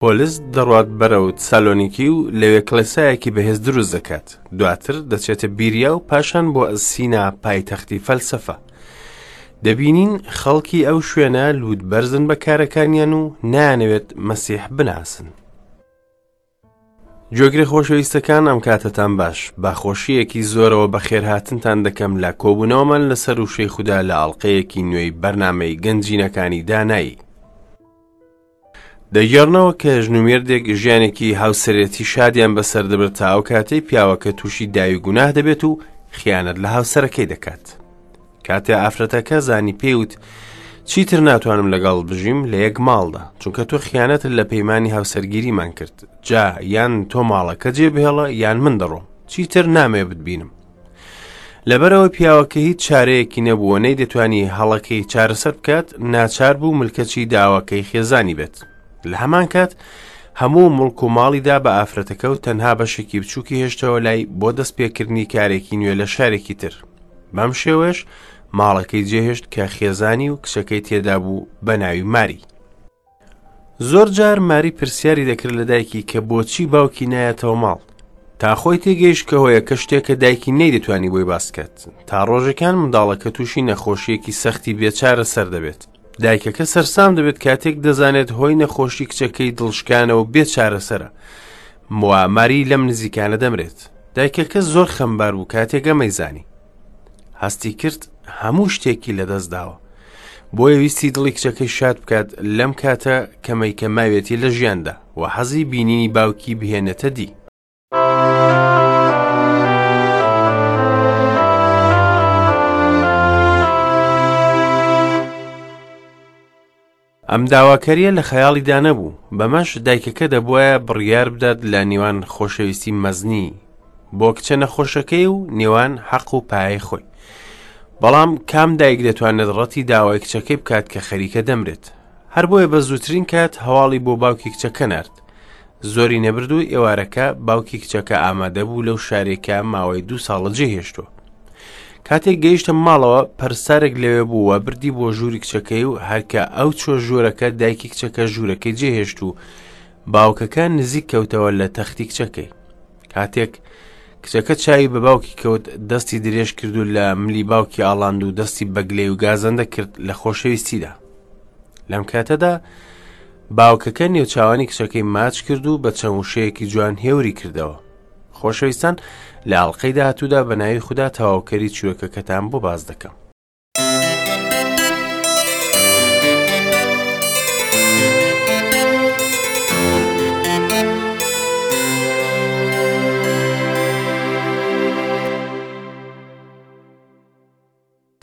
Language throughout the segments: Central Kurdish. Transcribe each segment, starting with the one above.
پۆلس دەڕوات بەرەو تسالۆنیکی و لەوێ کڵێسایەکی بەهێز دروست دەکات. دواتر دەچێتە بیریا و پاشان بۆ ئەسینا پایتەختی فەلسەفە. دەبینین خەڵکی ئەو شوێنە لووتبەرزن بە کارەکانیان و نایانەوێت مەسیح بناسن. گوێگرە خۆشەویستەکان ئەم کاتەتان باش بە خۆشیەکی زۆرەوە بەخێرهاتنتان دەکەم لە کۆبوونەوەمان لەسەر وشەی خودا لە ئاڵلقەیەکی نوێی بەرنامەی گەنجینەکانی دانایی. دەگێڕنەوە کە ژن و مێردێک ژیانێکی هاوسەرێتی شادیان بەسەر دەبرد تا ئەو کاتەی پیاوەکە تووشی داوی گوناه دەبێت و خیانەت لە هاوسەرەکەی دەکات. کاتێ ئافرەتەکە زانی پێیوت چیتر ناتوانم لەگەڵ بژیم لە یەک ماڵدا چونکە تۆ خیانەتت لە پەیمانی هاوسەرگیریمان کرد جا یان تۆ ماڵەکە جێ بهێڵە یان من دەڕۆم چیتر نامەوێ بتبینم لەبەرەوە پیاوەکە هیچ چارەیەکی نەبووە نەیدەتوانی هەڵەکەی چارەسەر بکات ناچار بوو ملکەچی داواکەی خێزانی بێت لە هەمان کات هەموو مڵک و ماڵیدا بە ئافرەتەکە و تەنها بەشێکی بچووکی هێشتەوە لای بۆ دەست پێکردنی کارێکی نوێ لە شارێکی تر بەم شێوەیەش ماڵەکەی جێهێشت کە خێزانی و کچەکەی تێدا بوو بە ناوی ماری. زۆر جار ماری پرسیاری دەکرد لە دایکی کە بۆچی باوکی نایەتەوە ماڵ. تا خۆی تێگەیشت کە هۆیەکە شتێکە دایکی نەیدەتوانی بۆی باس بکات. تا ڕۆژێکان منداڵەکە تووشی نەخۆشییەکی سەختی بێچارە سەر دەبێت. دایکەکە سەرسام دەبێت کاتێک دەزانێت هۆی نەخۆشی کچەکەی دڵشکانە و بێ چارەسەرە. وا ماری لەم نزیکانە دەمرێت. دایکەکە زۆر خەمبار بوو کاتێک ئەمەی زانی. هەستی کرد هەموو شتێکی لەدەست داوە. بۆیە ویستی دڵی کچەکەی شاد بکات لەم کاتە کەمەی کە ماوێتی لە ژیاندا و حەزی بینینی باوکی بهێنێتە دی. ئەم داواکارییە لە خەیاڵیدا نەبوو، بەمەش دایکەکە دەبوایە بڕیار بدات لە نێوان خۆشەویستی مەزنی بۆ کچە نەخۆشەکەی و نێوان حەق و پایەی خۆی. بەڵام کام دایک دەتوانێت ڕەتی داوای کچەکەی بکات کە خەریکە دەمرێت؟ هەر بۆیە بە زووترین کات هەواڵی بۆ باوکی کچەکە نارد. زۆری نەبرد و ئێوارەکە باوکی کچەکە ئامادە بوو لەو شارێکە ماوەی دوو ساڵە جێهێشتووە. کاتێک گەیشتە ماڵەوە پەرستارێک لەوێ بوو و بردی بۆ ژووری کچەکەی و هەرکە ئەو چۆ ژوورەکە دایکی کچەکە ژوورەکەی جێهێشت و باوکەکە نزیک کەوتەوە لە تەختی کچەکەی کاتێک کچەکە چاوی بە باوکی کەوت دەستی درێژ کرد و لە ملی باوکی ئاڵاند و دەستی بەگلەی و گازەندە کرد لە خۆشەویستیدا لەم کاتەدا باوکەکە نێوچاوانی کچەکەی ماچ کرد و بە چەند وشەیەکی جوان هێوری کردەوە خۆشەویستان لە ئەڵلقەی داهاتوودا بە ناوی خودا تەواوکەری چیرۆکەکەتان بۆ باس دەکەم.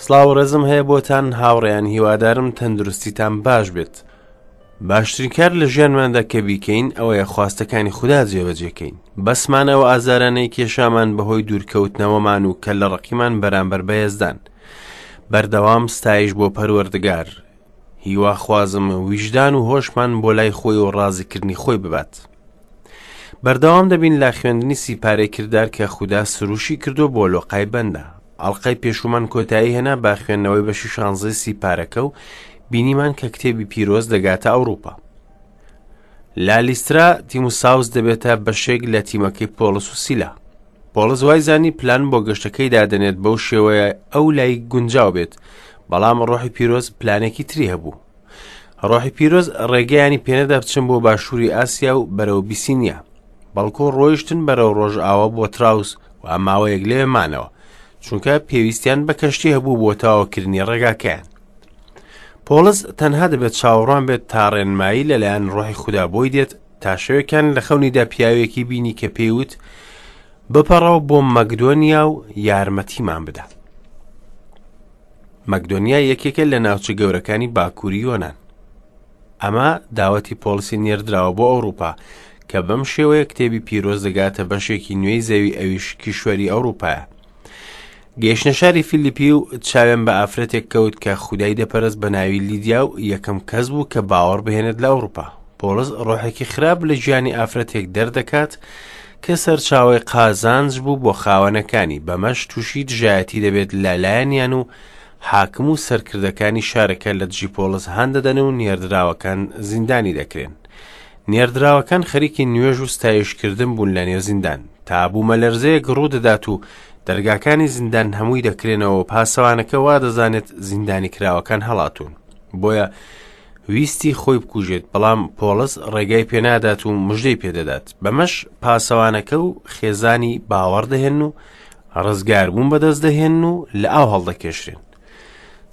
سڵاو ڕێزم هەیە بۆتان هاوڕێیان هیوادارم تەندروستیتان باش بێت باشترین کار لە ژیانماندا کە بیکەین ئەوەیە خواستەکانی خودا جێبەجێکەین بەسمان ئەو ئازارانەی کێشامان بەهۆی دوورکەوتنەوەمان و کە لە ڕقیمان بەرامبەر بە یەزدان بەردەوام ستایش بۆ پەروەردگار هیواخوازم ویژدان و هۆشمان بۆ لای خۆی و ڕازیکردنی خۆی ببات بەردەوام دەبین لە خوێندنی سیپارەی کردار کە خودا سروشی کردو بۆ لۆقای بەندە ئەڵقەی پێشوومان کۆتایی هێنا بە خوێندنەوەی بەشی شانزەی سیپارەکە و بینیمان کە کتێبی پیرۆز دەگاتە ئەوروپا لە لیسترا تیموساوس دەبێتە بەشێک لە تیمەکەی پۆڵس و سیلا پۆڵس وای زانی پلان بۆ گەشتەکەی دادەنێت بەو شێوەیە ئەو لای گونجاو بێت بەڵام ڕۆحی پیرۆز پلانێکی تری هەبوو ڕۆحی پیرۆز ڕێگەیانی پێنەدا بچن بۆ باشووری ئاسیا و بەرەو بیسینیا بەڵکو ڕۆیشتن بەرەو ڕۆژئاوا بۆ تراوس و ماوەیەک لەوێ مانەوە چونکە پێویستیان بە کەشتی هەبوو بۆ تەواوکردنی ڕێگاکەیان پۆڵس تەنها دەبێت چاوەڕوان بێت تا ڕێنمایی لەلایەن ڕۆحی خودا بۆی دێت تا شەوێکیان لە خەونیدا پیاوێکی بینی کە پێیوت بپەڕەوە بۆ مەکدۆنیا و یارمەتیمان بدە مەکدۆنیا یەکێکە لە ناوچە گەورەکانی باکووری یۆناان ئەمە داوەتی پۆڵسی نێردراوە بۆ ئەوروپا کە بەم شێوەیە کتێبی پیرۆز دەگاتە بەشێکی نوێی زەوی ئەویش کیشوەری ئەوروپایە. گەیشتە شاری فیلیپی و چاوێن بە ئافرەتێک کەوت کە خودای دەپەرست بە ناوی لیدیا و یەکەم کەس بوو کە باوەڕ بهێنێت لە ئەوروپا. پۆڵس ڕۆحێکی خراپ لە گیانی ئافرەتێک دەردەکات کە سەرچاوەی قازانج بوو بۆ خاوەنەکانی، بەمەش تووشی دژایەتی دەبێت لە لایەنیان و حاکم و سەرکردەکانی شارەکە لە دژی پۆڵس هان دەدەن و نێردراوەکان زیندانی دەکرێن. نێردراوەکان خەریکی نوێژ و ستایشکردن بوون لە نێو زیندان، تا بوومەلەرزەیەک ڕوودەدات و دەرگاکانی زیندان هەمووی دەکرێنەوە و پاسەوانەکە وا دەزانێت زیندانی کراوەکان هەڵاتوون. بۆیە ویستی خۆی بکوژێت، بەڵام پۆڵس ڕێگای پێنادات و مژدەی پێدەدات. بەمەش پاسەوانەکە و خێزانی باوەڕ دەهێن و ڕزگاربوون بەدەست دەهێن و لە ئاو هەڵدەکێشرێن.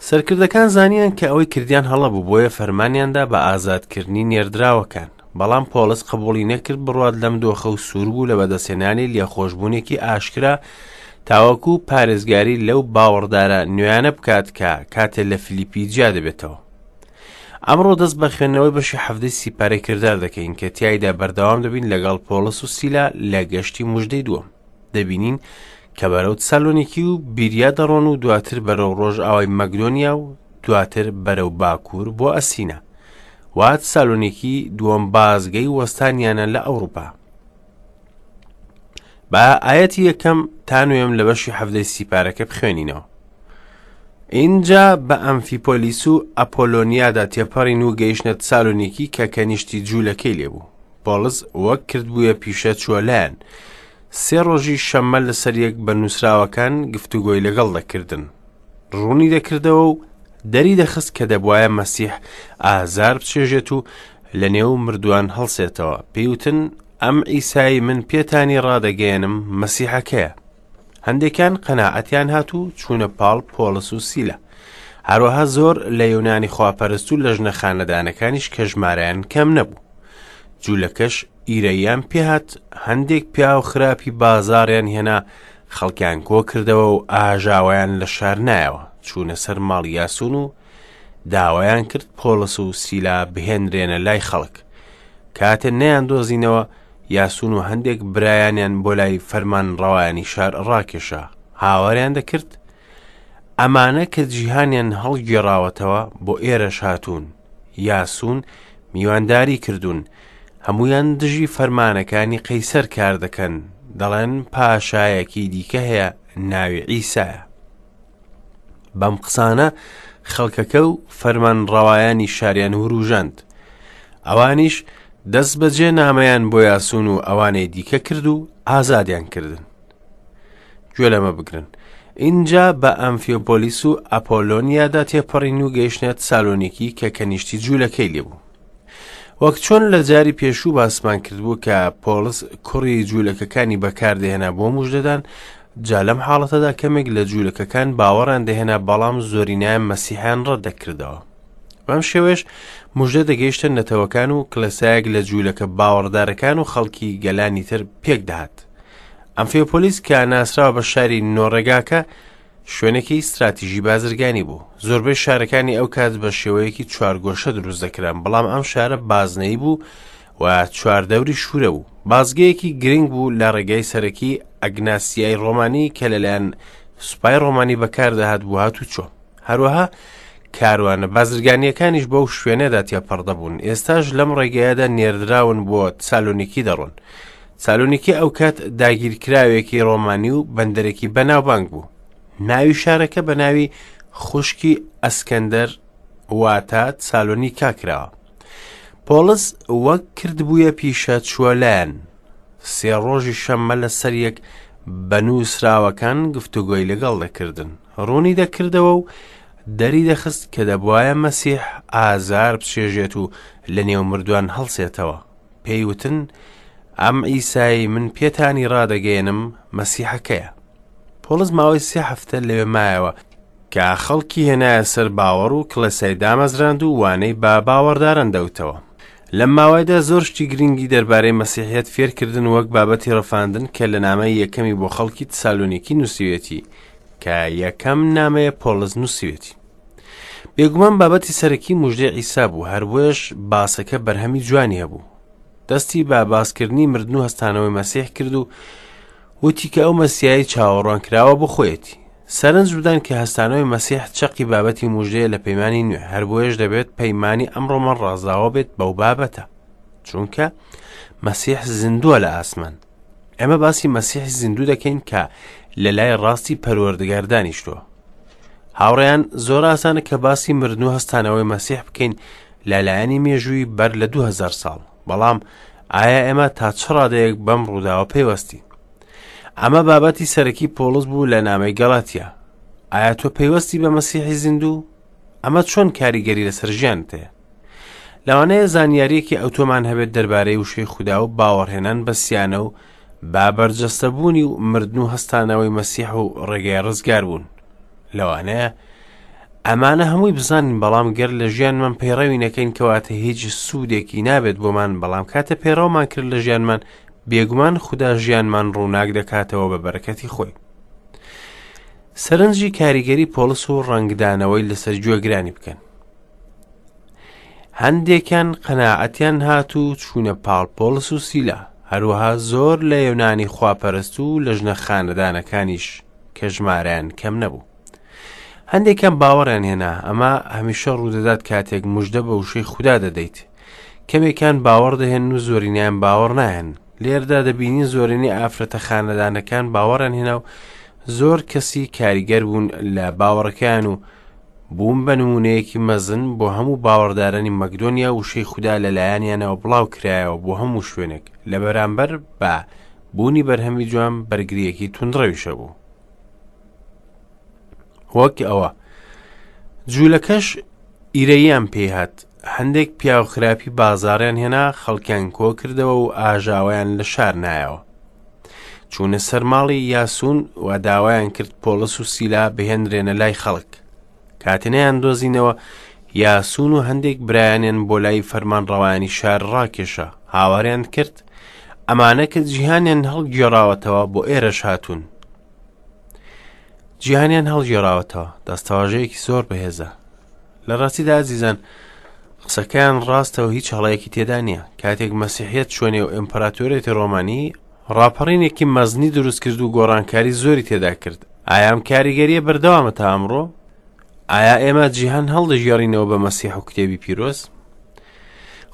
سەرکردەکان زانیان کە ئەوەی کردیان هەڵە بوو، بۆیە فەرمانیاندا بە ئازادکردنی نێردراوەکان. بەڵام پۆڵس قبوڵی نەکرد بڕوات لەم دۆخە و سوور بوو لە بەدەستهێنانی لێخۆشبوونێکی ئاشکرا تاوەکو پارێزگاری لەو باوەڕدارە نوێیانە بکات کە کاتێ لە فیلیپی جیا دەبێتەوە. ئەمڕۆ دەست بە خوێندنەوەی بەشی حەڤدەی سیپارەی کردار دەکەین کە تیایدا بەردەوام دەبین لەگەڵ پۆڵس و سیلا لە گەشتی مژدەی دووەم. دەبینین کە بەرەو تسالۆنیکی و بیریا دەڕۆن و دواتر بەرەو ڕۆژئاوای مەکدۆنیا و دواتر بەرەو باکوور بۆ ئەسینا. وا تسالۆنیکی دووەم بازگەی وەستانیانە لە ئەوروپا. با ئاەتی یەکەم تا نوێم لە بەشی حەڤدەی سیپارەکە بخوێنینەوە. ئینجا بە ئەمفیپۆلیس و ئەپۆلۆنیادا تێپەڕین و گەیشتە تسالۆنیکی کە کەنیشتی جوولەکەی لێبوو. پۆڵس وەک کردبوویە پیشە چووە لایان. سێ ڕۆژی شەممە لەسەر یەک بە نووسراوەکان گفتوگۆی لەگەڵ دەکردن. ڕوونی دەکردەوە و دەری دەخست کە دەبوایە مەسیح ئازار بچێژێت و لە نێو مردووان هەڵسێتەوە. پێی وتن، ئەم عیسای من پێتانی ڕادەگەیەنم مەسیحەکەیە. هەندێکیان قەناعەتیان هات و چوونە پاڵ پۆڵس و سیلا. هەروەها زۆر لە یۆنانی خواپەرست و لە ژنە خانەدانەکانیش کە ژمارەیان کەم نەبوو. جوولەکەش ئیرەییان پێهات، هەندێک پیاو خراپی بازاڕیان هێنا، خەڵکیان کۆ کردەوە و ئاژاوەیان لە شار نایەوە، چوونە سەر ماڵی یاسون و داوایان کرد پۆڵس و سیلا بهێنرێنە لای خەڵک. کاتێ نەیاندۆزینەوە، یاسون و هەندێک برایانیان بۆ لای فەرمانڕەوایانی شار ڕاکێشا، هاواریان دەکرد، ئەمانە کە جیهانیان هەڵگێڕاوەتەوە بۆ ئێرەش هاتوون، یاسون میوانداری کردوون، هەموویان دژی فەرمانەکانی قەیسەر کار دەکەن، دەڵێن پاشایەکی دیکە هەیە ناوی عیسایە. بەم قسانە خەڵکەکە و فەرمانڕەوایانی شاریان وروژاند. ئەوانیش دەست بەجێ نامەیان بۆ یاسون و ئەوانەی دیکە کرد و ئازادیان کردن. گوێ لەمە بگرن. ئینجا بە ئەمفیۆپۆلیس و ئەپۆلۆنیادا تێپەڕین و گەیشتە تسالۆنیکی کە کەنیشتی جوولەکەی لێبوو. وەک چۆن لە جاری پێشوو باسمان کردبوو کە پۆڵس کوڕی جوولەکەکانی بەکاردەهێنا بۆ مژدەدان، جا لەم حاڵەتەدا کەمێک لە جوولەکەکان باوەڕیان دەهێنا بەڵام زۆرینەیان مەسیحیان ڕەت دەکردەوە. بەم شێوەیەش مژدە دەگەیشتە نەتەوەکان و کڵێسایەک لە جوولەکە باوەڕدارەکان و خەڵکی گەلانی تر پێک دەهات. ئەمفیۆپۆلیس کە ناسراوە بە شاری نۆڕێگاکە شوێنێکی ستراتیژی بازرگانی بوو. زۆربەی شارەکانی ئەو کات بە شێوەیەکی چوارگۆشە دروست دەکران، بەڵام ئەم شارە بازنەیی بوو و چواردەوری شوورە بوو. بازگەیەکی گرنگ بوو لە ڕێگای سەرەکی ئەگناسیای ڕۆمانی کە لەلایەن سوپای ڕۆمانی بەکاردەهات بۆ هاتوچۆ. هەروەها کاروانە بازرگانییەکانیش بەو شوێنەدا تێپەڕ دەبوون. ئێستاش لەم ڕێگایەدا نێردراون بۆ تسالۆنیکی دەڕۆن. سالۆنیکی ئەوکات داگیرکراوێکی ڕۆمانی و بەندەرێکی بەناوبانگ بوو. ناوی شارەکە بە ناوی خوشکی ئەسکەندەر واتە سالۆنیکا کراوە. پۆڵس وەک کردبوویە پیشە چووە لایەن. سێ ڕۆژی شەممە لەسەر یەک بە نووسراوەکان گفتوگۆی لەگەڵ دەکردن. ڕوونی دەکردەوە و دەری دەخست کە دەبوایە مەسیح ئازار بچێژێت و لە نێو مردووان هەڵسێتەوە. پێی وتن، ئەم عیسای من پێتانی ڕادەگەیەنم مەسیحەکەیە. پۆڵس ماوەی سێ هەفتە لەوێ مایەوە کە خەڵکی هێنایە سەر باوەڕ و کڵێسای دامەزراند و وانەی بە باوەڕداران دەوتەوە. لەم ماوەیەدا زۆر شتی گرنگی دەربارەی مەسیحیەت فێرکردن وەک بابەتی ڕفاندن کە لە نامەی یەکەمی بۆ خەڵکی تسالۆنیکی نووسیوێتی کە یەکەم نامەیە پۆڵس نووسیوێتی. بێگومان بابەتی سەرەکی مژدەی عیسا بوو، هەر بۆیەش باسەکە بەرهەمی جوانی هەبوو. دەستی بە باسکردنی مردن و هەستانەوەی مەسیح کرد و وتی کە ئەو مەسیای چاوەڕوان کراوە بۆ خۆیەتی. سەرنج بدەن کە هەستانەوەی مەسیح چەقی بابەتی مژدەیە لە پەیمانی نوێ، هەر بۆیەش دەبێت پەیمانی ئەمڕۆمان ڕازاوە بێت بەو بابەتە، چونکە مەسیح زیندووە لە ئاسمان. ئێمە باسی مەسیحی زیندوو دەکەین کە لە لای ڕاستی پەروەردگار دانیشتووە. هاوڕێیان زۆر ئاسانە کە باسی مردن و هەستانەوەی مەسیح بکەین لە لایەنی مێژووی بەر لە 2000 ساڵ. بەڵام ئایا ئێمە تا چ ڕادەیەک بەم ڕووداوە پەیوەستین؟ ئەمە بابەتی سەرەکی پۆڵس بوو لە نامەی گەڵاتیا. ئایا تۆ پەیوەستی بە مەسیحی زیندوو؟ ئەمە چۆن کاریگەری لەسەر ژیانت هەیە؟ لەوانەیە زانیاریەکی ئەوتۆمان هەبێت دەربارەی وشەی خودا و باوەڕهێنان بە سیانە و با بەرجەستەبوونی و مردن و هەستانەوەی مەسیح و ڕێگای ڕزگاربوون. لەوانەیە ئەمانە هەمووی بزانین بەڵام گەر لە ژیانمان پەیڕەوی نەکەین کەواتە هیچ سوودێکی نابێت بۆمان بەڵام کاتە پەیڕەومان کرد لە ژیانمان بێگومان خودا ژیانمان ڕووناک دەکاتەوە بە بەرەکەتی خۆی. سەرنجی کاریگەری پۆڵس و ڕەنگدانەوەی لەسەر گوێگرانی بکەن. هەندێکیان قەناعەتیان هات و چوونە پاڵ پۆڵس و سیلا، هەروەها زۆر لە یۆنانی خواپەرست و لە ژنە خانەدانەکانیش کە ژمارەیان کەم نەبوو. هەندێکیان باوەڕیان هێنا، ئەمە هەمیشە ڕوودەدات کاتێک مژدە بە وشەی خودا دەدەیت. کەمێکیان باوەڕ دەهێنن و زۆرینەیان باوەڕ ناهێنن. لێرەدا دەبینین زۆرینەی ئافرەتە خانەدانەکان باوەڕیان هێنا و زۆر کەسی کاریگەر بوون لە باوەڕەکەیان و بوون بە نموونەیەکی مەزن بۆ هەموو باوەڕدارانی مەکدۆنیا وشەی خودا لەلایەنیانەوە بڵاو کرایەوە بۆ هەموو شوێنێک لە بەرامبەر بە بوونی بەرهەمی جوان بەرگریەکی توندڕەویش هەبوو. وەک ئەوە جوولەکەش ئیرەییان پێی هات هەندێک پیاو خراپی بازاڕیان هێنا خەڵکیان کۆ کردەوە و ئاژاوەیان لە شار نایەوە چوونە سەر ماڵی یاسون و داوایان کرد پۆڵس و سیلا بهێنرێنە لای خەڵک کاتێ نەیان دۆزینەوە یاسون و هەندێک برایانیان بۆ لای فەرمانڕەوایانی شار ڕاکێشا هاواریان کرد ئەمانە کە جیهانیان هەڵگێڕاوەتەوە بۆ ئێرەش هاتوون جیهانیان هەڵگێڕاوەتەوە دەستەواژەیەکی زۆر بەهێزە لە ڕاستیدا ئازیزان قسەکەیان ڕاستە و هیچ هەڵەیەکی تێدا نییە کاتێک مەسیحیەت چوە نێو ئیمپراتۆریەتی ڕۆمانی ڕاپەڕینێکی مەزنی دروست کرد و گۆڕانکاری زۆری تێدا کرد ئایا ئەم کاریگەریە بەردەوامە تا ئەمڕۆ ئایا ئێمە جیهان هەڵدەگێڕینەوە بە مەسیح و کتێبی پیرۆز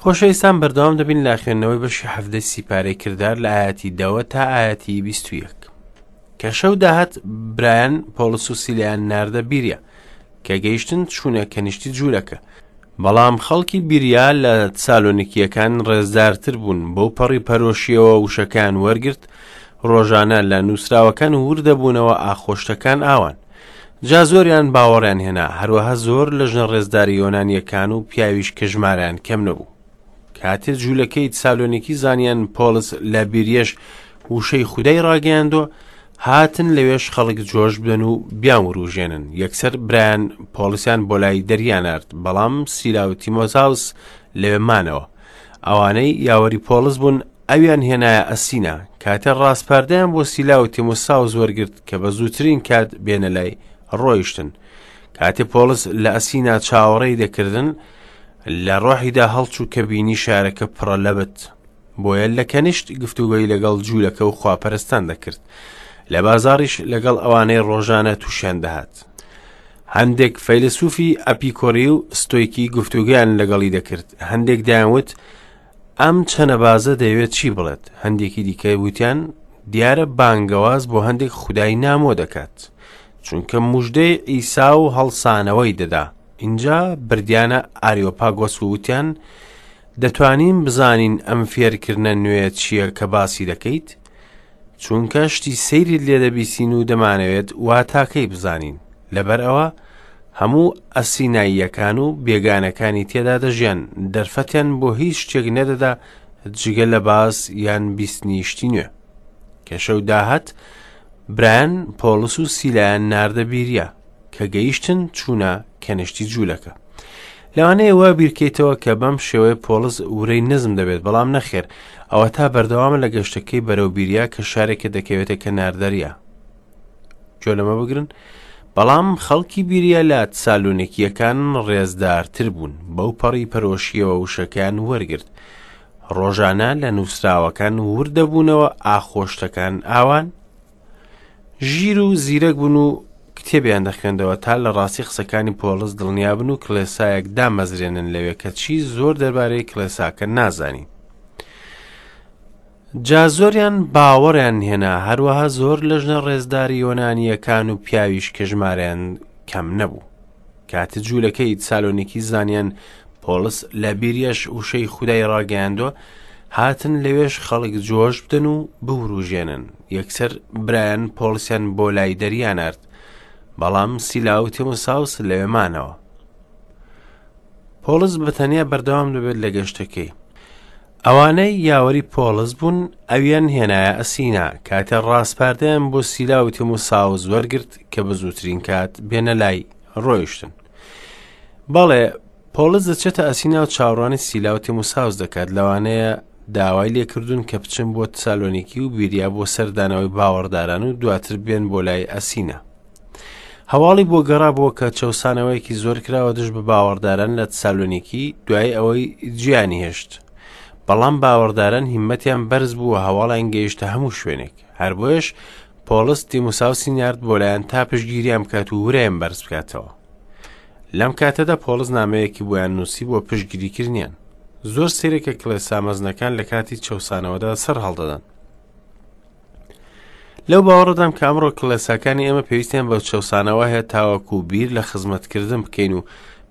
خۆشەویستان بەردەوام دەبین لە خوێندنەوەی بەشی حەفدەی سیپارەی کردار لە ئاەتی دەوە تا ئاەتی 21 کە شەو داهات برایان پۆڵس و سیلیان ناردە بیریا کە گەیشتن چوونە کەنیشتی جوولەکە بەڵام خەڵکی بیریا لە تسالۆنیکییەکان ڕێزدارتر بوون بەو پەڕی پەرۆشیەوە وشەکان وەرگرت ڕۆژانە لە نووسراوەکان وردەبوونەوە ئاخۆشتەکان ئاوان جا زۆریان باوەڕیان هێنا هەروەها زۆر لە ژنە ڕێزداری یۆنانیەکان و پیاویش کە ژمارەیان کەم نەبوو کاتێ جوولەکەی تسالۆنیکی زانیان پۆڵس لە بیریەش وشەی خودای ڕاگەیاندووە هاتن لەوێش خەڵک جۆش بدەن و بیان وروژێنن یەکسەر برایان پۆڵسیان بۆ لای دەریا نارد بەڵام سیلا و تیمۆساوس لەوێ مانەوە ئەوانەی یاوەری پۆڵس بوون ئەویان هێنایە ئەسینا کاتێ ڕاسپاردەیان بۆ سیلا و تیمۆساوس وەرگرت کە بە زووترین کات بێنە لای ڕۆیشتن کاتێ پۆڵس لە ئەسینا چاوەڕێی دەکردن لە ڕۆحیدا هەڵچوو کە بینی شارەکە پڕە لە بت بۆیە لە کەنیشت گفتوگۆی لەگەڵ جوولەکە و خواپەرستان دەکرد لە بازاڕیش لەگەڵ ئەوانەی ڕۆژانە تووشیان دەهات هەندێک فەیلسوفی ئەپیکۆری و ستۆیکی گفتوگویان لەگەڵی دەکرد هەندێک دەیانوت ئەم چەنەبازە دەیەوێت چی بڵێت هەندێکی دیکە وتیان دیارە بانگەواز بۆ هەندێک خودای نامۆ دەکات چونکە مژدەی ئیسا و هەڵسانەوەی دەدا ئینجا بردیانە ئاریۆپاگۆس و وتیان دەتوانین بزانین ئەم فێرکردنە نوێ چییە کە باسی دەکەیت؟ چونکە شتی سەیریت لێ دەبیسین و دەمانەوێت واتاکەی بزانین. لەبەر ئەوە هەموو ئەسیناییەکان و بێگانەکانی تێدا دەژیان، دەرفەتیان بۆ هیچ شتێک نەدەدا جگە لە باس یان بیستنی شتی نوێ. کە شەو داهات، برایان پۆڵس و سیلایان ناردە بیریا. کە گەیشتن چوونە کەنیشتی جوولەکە. لەوانەیە وا بیرکەیتەوە کە بەم شێوەیە پۆڵس ورەی نزم دەبێت بەڵام نەخێر ئەوە تا بەردەوامە لە گەشتەکەی بەرەو بیریا کە شارێکە دەکەوێتە کەنار دەریا گوێ لەمە بگرن بەڵام خەڵکی بیریا لە تسالۆنیکیەکان ڕێزدارتر بوون بەو پەڕی پەرۆشیەوە وشەکەیان وەرگرت ڕۆژانە لە نووسراوەکان وردەبوونەوە ئاخۆشتەکان ئاوان ژیر و زیرەک بوون و کتێبیان دەخوێندەوە تا لە ڕاستی قسەکانی پۆڵس دڵنیابن و کڵێسایەک دامەزرێنن لەوێ کە چی زۆر دەربارەی کڵێساکە نازانین. جا زۆریان باوەڕیان هێنا هەروەها زۆر لە ژنە ڕێزداری یۆنانییەکان و پیاویش کە ژمارەیان کەم نەبوو. کاتێ جوولەکەی تسالۆنیکی زانیان پۆڵس لە بیریەش وشەی خودای ڕاگەیاندووە، هاتن لەوێش خەڵک جۆش بدەن و بوروژێنن. یەکسەر برایان پۆڵسیان بۆ لای دەریا نارد، بەڵام سیلا و تیموساوس لەوێ مانەوە. پۆڵس بە تەنیا بەردەوام دەبێت لە گەشتەکەی. ئەوانەی یاوەری پۆڵس بوون ئەویان هێنایە ئەسینا، کاتێ ڕاسپاردەیان بۆ سیلا و تیموساوس وەرگرت کە بە زووترین کات بێنە لای، ڕۆیشتن. بەڵێ، پۆڵس دەچێتە ئەسینا و چاوەڕوانی سیلا و تیموساوس دەکات، لەوانەیە داوای لێکردوون کە بچن بۆ تسالۆنیکی و بیریا بۆ سەردانەوەی باوەڕداران و دواتر بێن بۆ لای ئەسینا. هەواڵی بۆ گەڕابووە کە چەوسانەوەیەکی زۆر کراوە دژ بە باوەڕداران لە تسالۆنیکی دوای ئەوەی جیانی هێشت. بەڵام باوەڕداران هیمەتیان بەرز بوو و هەواڵیان گەیشتە هەموو شوێنێک. هەر بۆیەش پۆڵس تیموساوسی نارد بۆ لایان تا پشتگیریان بکات و ورەیان بەرز بکاتەوە. لەم کاتەدا پۆڵس نامەیەکی بۆیان نووسی بۆ پشتگیریکردنیان. زۆر سەیرە کە کڵێسا مەزنەکان لە کاتی چەوسانەوەدا سەر هەڵدەدەن. لەو باوەڕەدام کە ئەمڕۆ کڵێساکانی ئێمە پێویستیان بە چەوسانەوە هەیە تاوەکو بیر لە خزمەتکردن بکەین و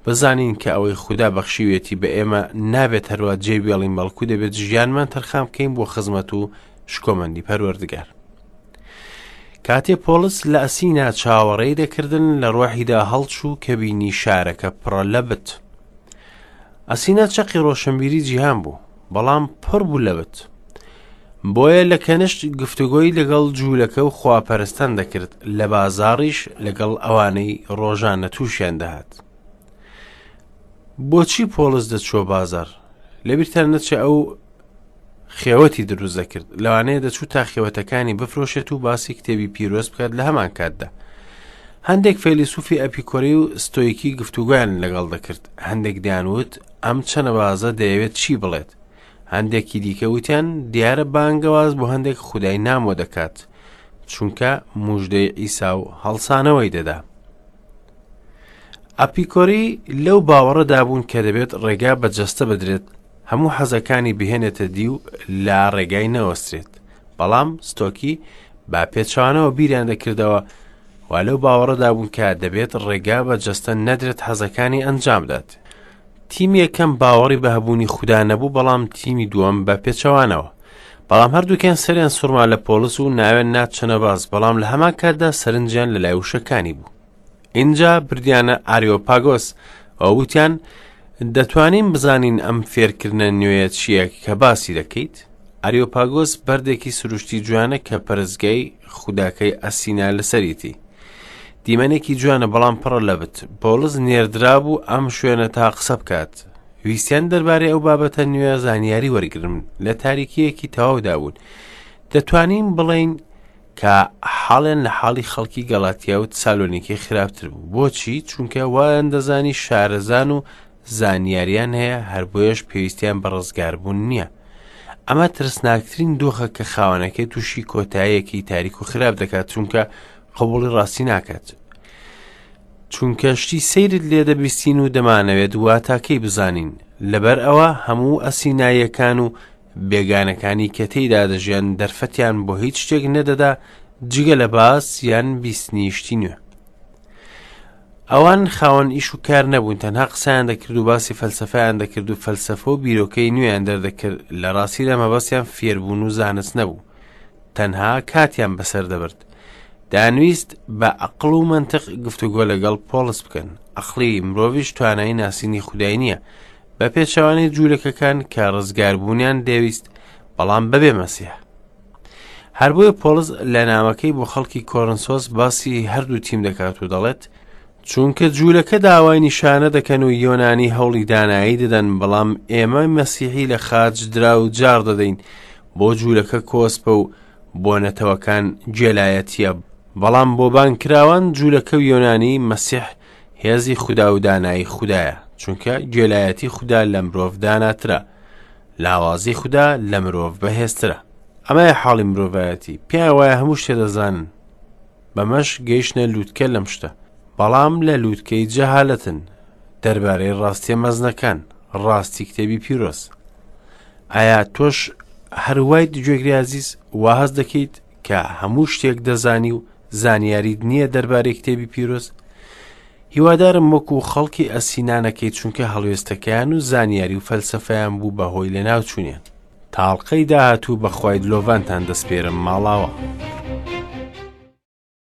بزانین کە ئەوەی خودا بەخشیوێتی بە ئێمە نابێت هەروە جێ بێڵین بەڵکو دەبێت ژیانمان تەرخان بکەین بۆ خزمەت و شکۆمەندی پەروەردگار. کاتێ پۆڵس لە ئەسینا چاوەڕێی دەکردن لە ڕۆحیدا هەڵچوو کە بینی شارەکە پڕە لە بت. ئەسینا چەقی ڕۆشنبیری جیهان بوو، بەڵام پڕ بوو لە بت. بۆیە لە کەنشت گفتوگۆی لەگەڵ جوولەکە و خواپەرستان دەکرد، لە بازاڕیش لەگەڵ ئەوانەی ڕۆژانە تووشیان دەهات. بۆچی پۆڵس دەچووە بازاڕ؟ لەبیرتان نەچێ ئەو خێوەتی دروست دەکرد لەوانەیە دەچوو تا خێوەتەکانی بفرۆشێت و باسی کتێبی پیرۆز بکات لە هەمان کاتدا هەندێک فەیلسوفی ئەپیکۆری و ستۆیکی گفتوگۆیان لەگەڵ دەکرد هەندێک دەیانوت ئەم چەنەبازە دەیەوێت چی بڵێت هەندێکی دیکە وتیان دیارە بانگەواز بۆ هەندێک خودای نامۆ دەکات چونکە موژدەی عیسا و هەڵسانەوەی دەدا ئەپیکۆری لەو باوەڕەدا بوون کە دەبێت ڕێگا بە جەستە بدرێت هەموو حەزەکانی بهێنێتە دی و لە ڕێگای نەوەسترێت بەڵام ستۆکی بە پێچوانەوە بیریان دەکردەوە و لەو باوەڕەدا بوون کە دەبێت ڕێگا بە جەستە نەدرێت حەزەکانی ئەنجام بدات تیمی یەکەم باوەڕی بە هەبوونی خودا نەبوو بەڵام تیمی دووەم بە پێچەوانەوە بەڵام هەردووکیان سەریان سوڕما لە پۆڵس و ناوێن ناچەنە باز بەڵام لە هەمان کاتدا سەرنجیان لە لای وشەکانی بوو ئینجا بردیانە ئاریۆپاگۆس و وتیان دەتوانین بزانین ئەم فێرکردنە نوێیە چییە کە باسی دەکەیت؟ ئاریۆپاگۆس بەردێکی سروشتی جوانە کە پەرستگای خوداکەی ئەسینا لەسەریتی. دیمەنێکی جوانە بەڵام پڕە لە بت. پۆڵس نێردرابوو ئەم شوێنە تا قسە بکات. ویستیان دەربارەی ئەو بابەتە نوێ زانیاری وەرگرن. لە تاریکییەکی تەواودا بوون. دەتوانین بڵێین کە حاڵیان لە حاڵی خەڵکی گەڵاتیا و تسالۆنیکی خراپتر بوو بۆچی چونکە وایان دەزانی شارەزان و زانیاریان هەیە هەر بۆیەش پێویستیان بە ڕزگاربوون نییە ئەمە ترسناکترین دۆخە کە خاوەنەکەی تووشی کۆتاییەکی تاریک و خراپ دەکات چونکە قبوڵی ڕاستی ناکات چونکە شتی سەیرت لێ دەبیستین و دەمانەوێت واتاکەی بزانین لەبەر ئەوە هەموو ئەسیناییەکان و بێگانەکانی کە تێیدا دەژیان دەرفەتیان بۆ هیچ شتێک نەدەدا جگە لە باس یان بیستنی شتی نوێ. ئەوان خاوەن ئیش و کار نەبوون تەنها قسەیان دەکرد و باسی فەلسەفەیان دەکرد و فەلسەفە و بیرۆکەی نوێیان دەردەکرد لە ڕاستیدا مەبەستیان فێربوون و زانست نەبوو تەنها کاتیان بەسەر دەبرد دەیانویست بە ئەقڵ و مەنتق گفتوگۆ لەگەڵ پۆڵس بکەن ئەقڵی مرۆڤیش توانای ناسینی خودای نییە بە پێچەوانەی جوولەکەکان کە ڕزگاربوونیان دەویست بەڵام بەبێ مەسیح هەر بۆیە پۆڵس لە نامەکەی بۆ خەڵکی کۆرنسۆس باسی هەردوو تیم دەکات و دەڵێت چونکە جوولەکە داوای نیشانە دەکەن و یۆنانی هەوڵی دانایی دەدەن بەڵام ئێمە مەسیحی لە خاچ درا و جار دەدەین بۆ جوولەکە کۆسپە و بۆ نەتەوەکان گێلایەتیە بەڵام بۆ بانگکراوان جوولەکە و یۆنانی مەسیح هێزی خودا و دانایی خودایە چونکە گێلایەتی خودا لە مرۆڤ داناترە لاوازی خودا لە مرۆڤ بەهێزترە ئەمەیە حاڵی مرۆڤایەتی پێیان وایە هەموو شتێ دەزانن بەمەش گەیشتنە لووتکە لەم شتە بەڵام لە لووتکەی جەهالەتن دەربارەی ڕاستیە مەزنەکان ڕاستی کتێبی پیرۆز ئایا تۆش هەروایت گوێگری ئازیز وا هەست دەکەیت کە هەموو شتێک دەزانی و زانیاریت نییە دەربارەی کتێبی پیرۆز هیوادارم وەکو خەڵکی ئەسینا نەکەیت چونکە هەڵوێستەکەیان و زانیاری و فەلسەفەیان بوو بە هۆی لەناوچوونیان. تا ئەڵقەی داهاتوو بە خوای دلۆڤانتان دەسپێرم ماڵاوا.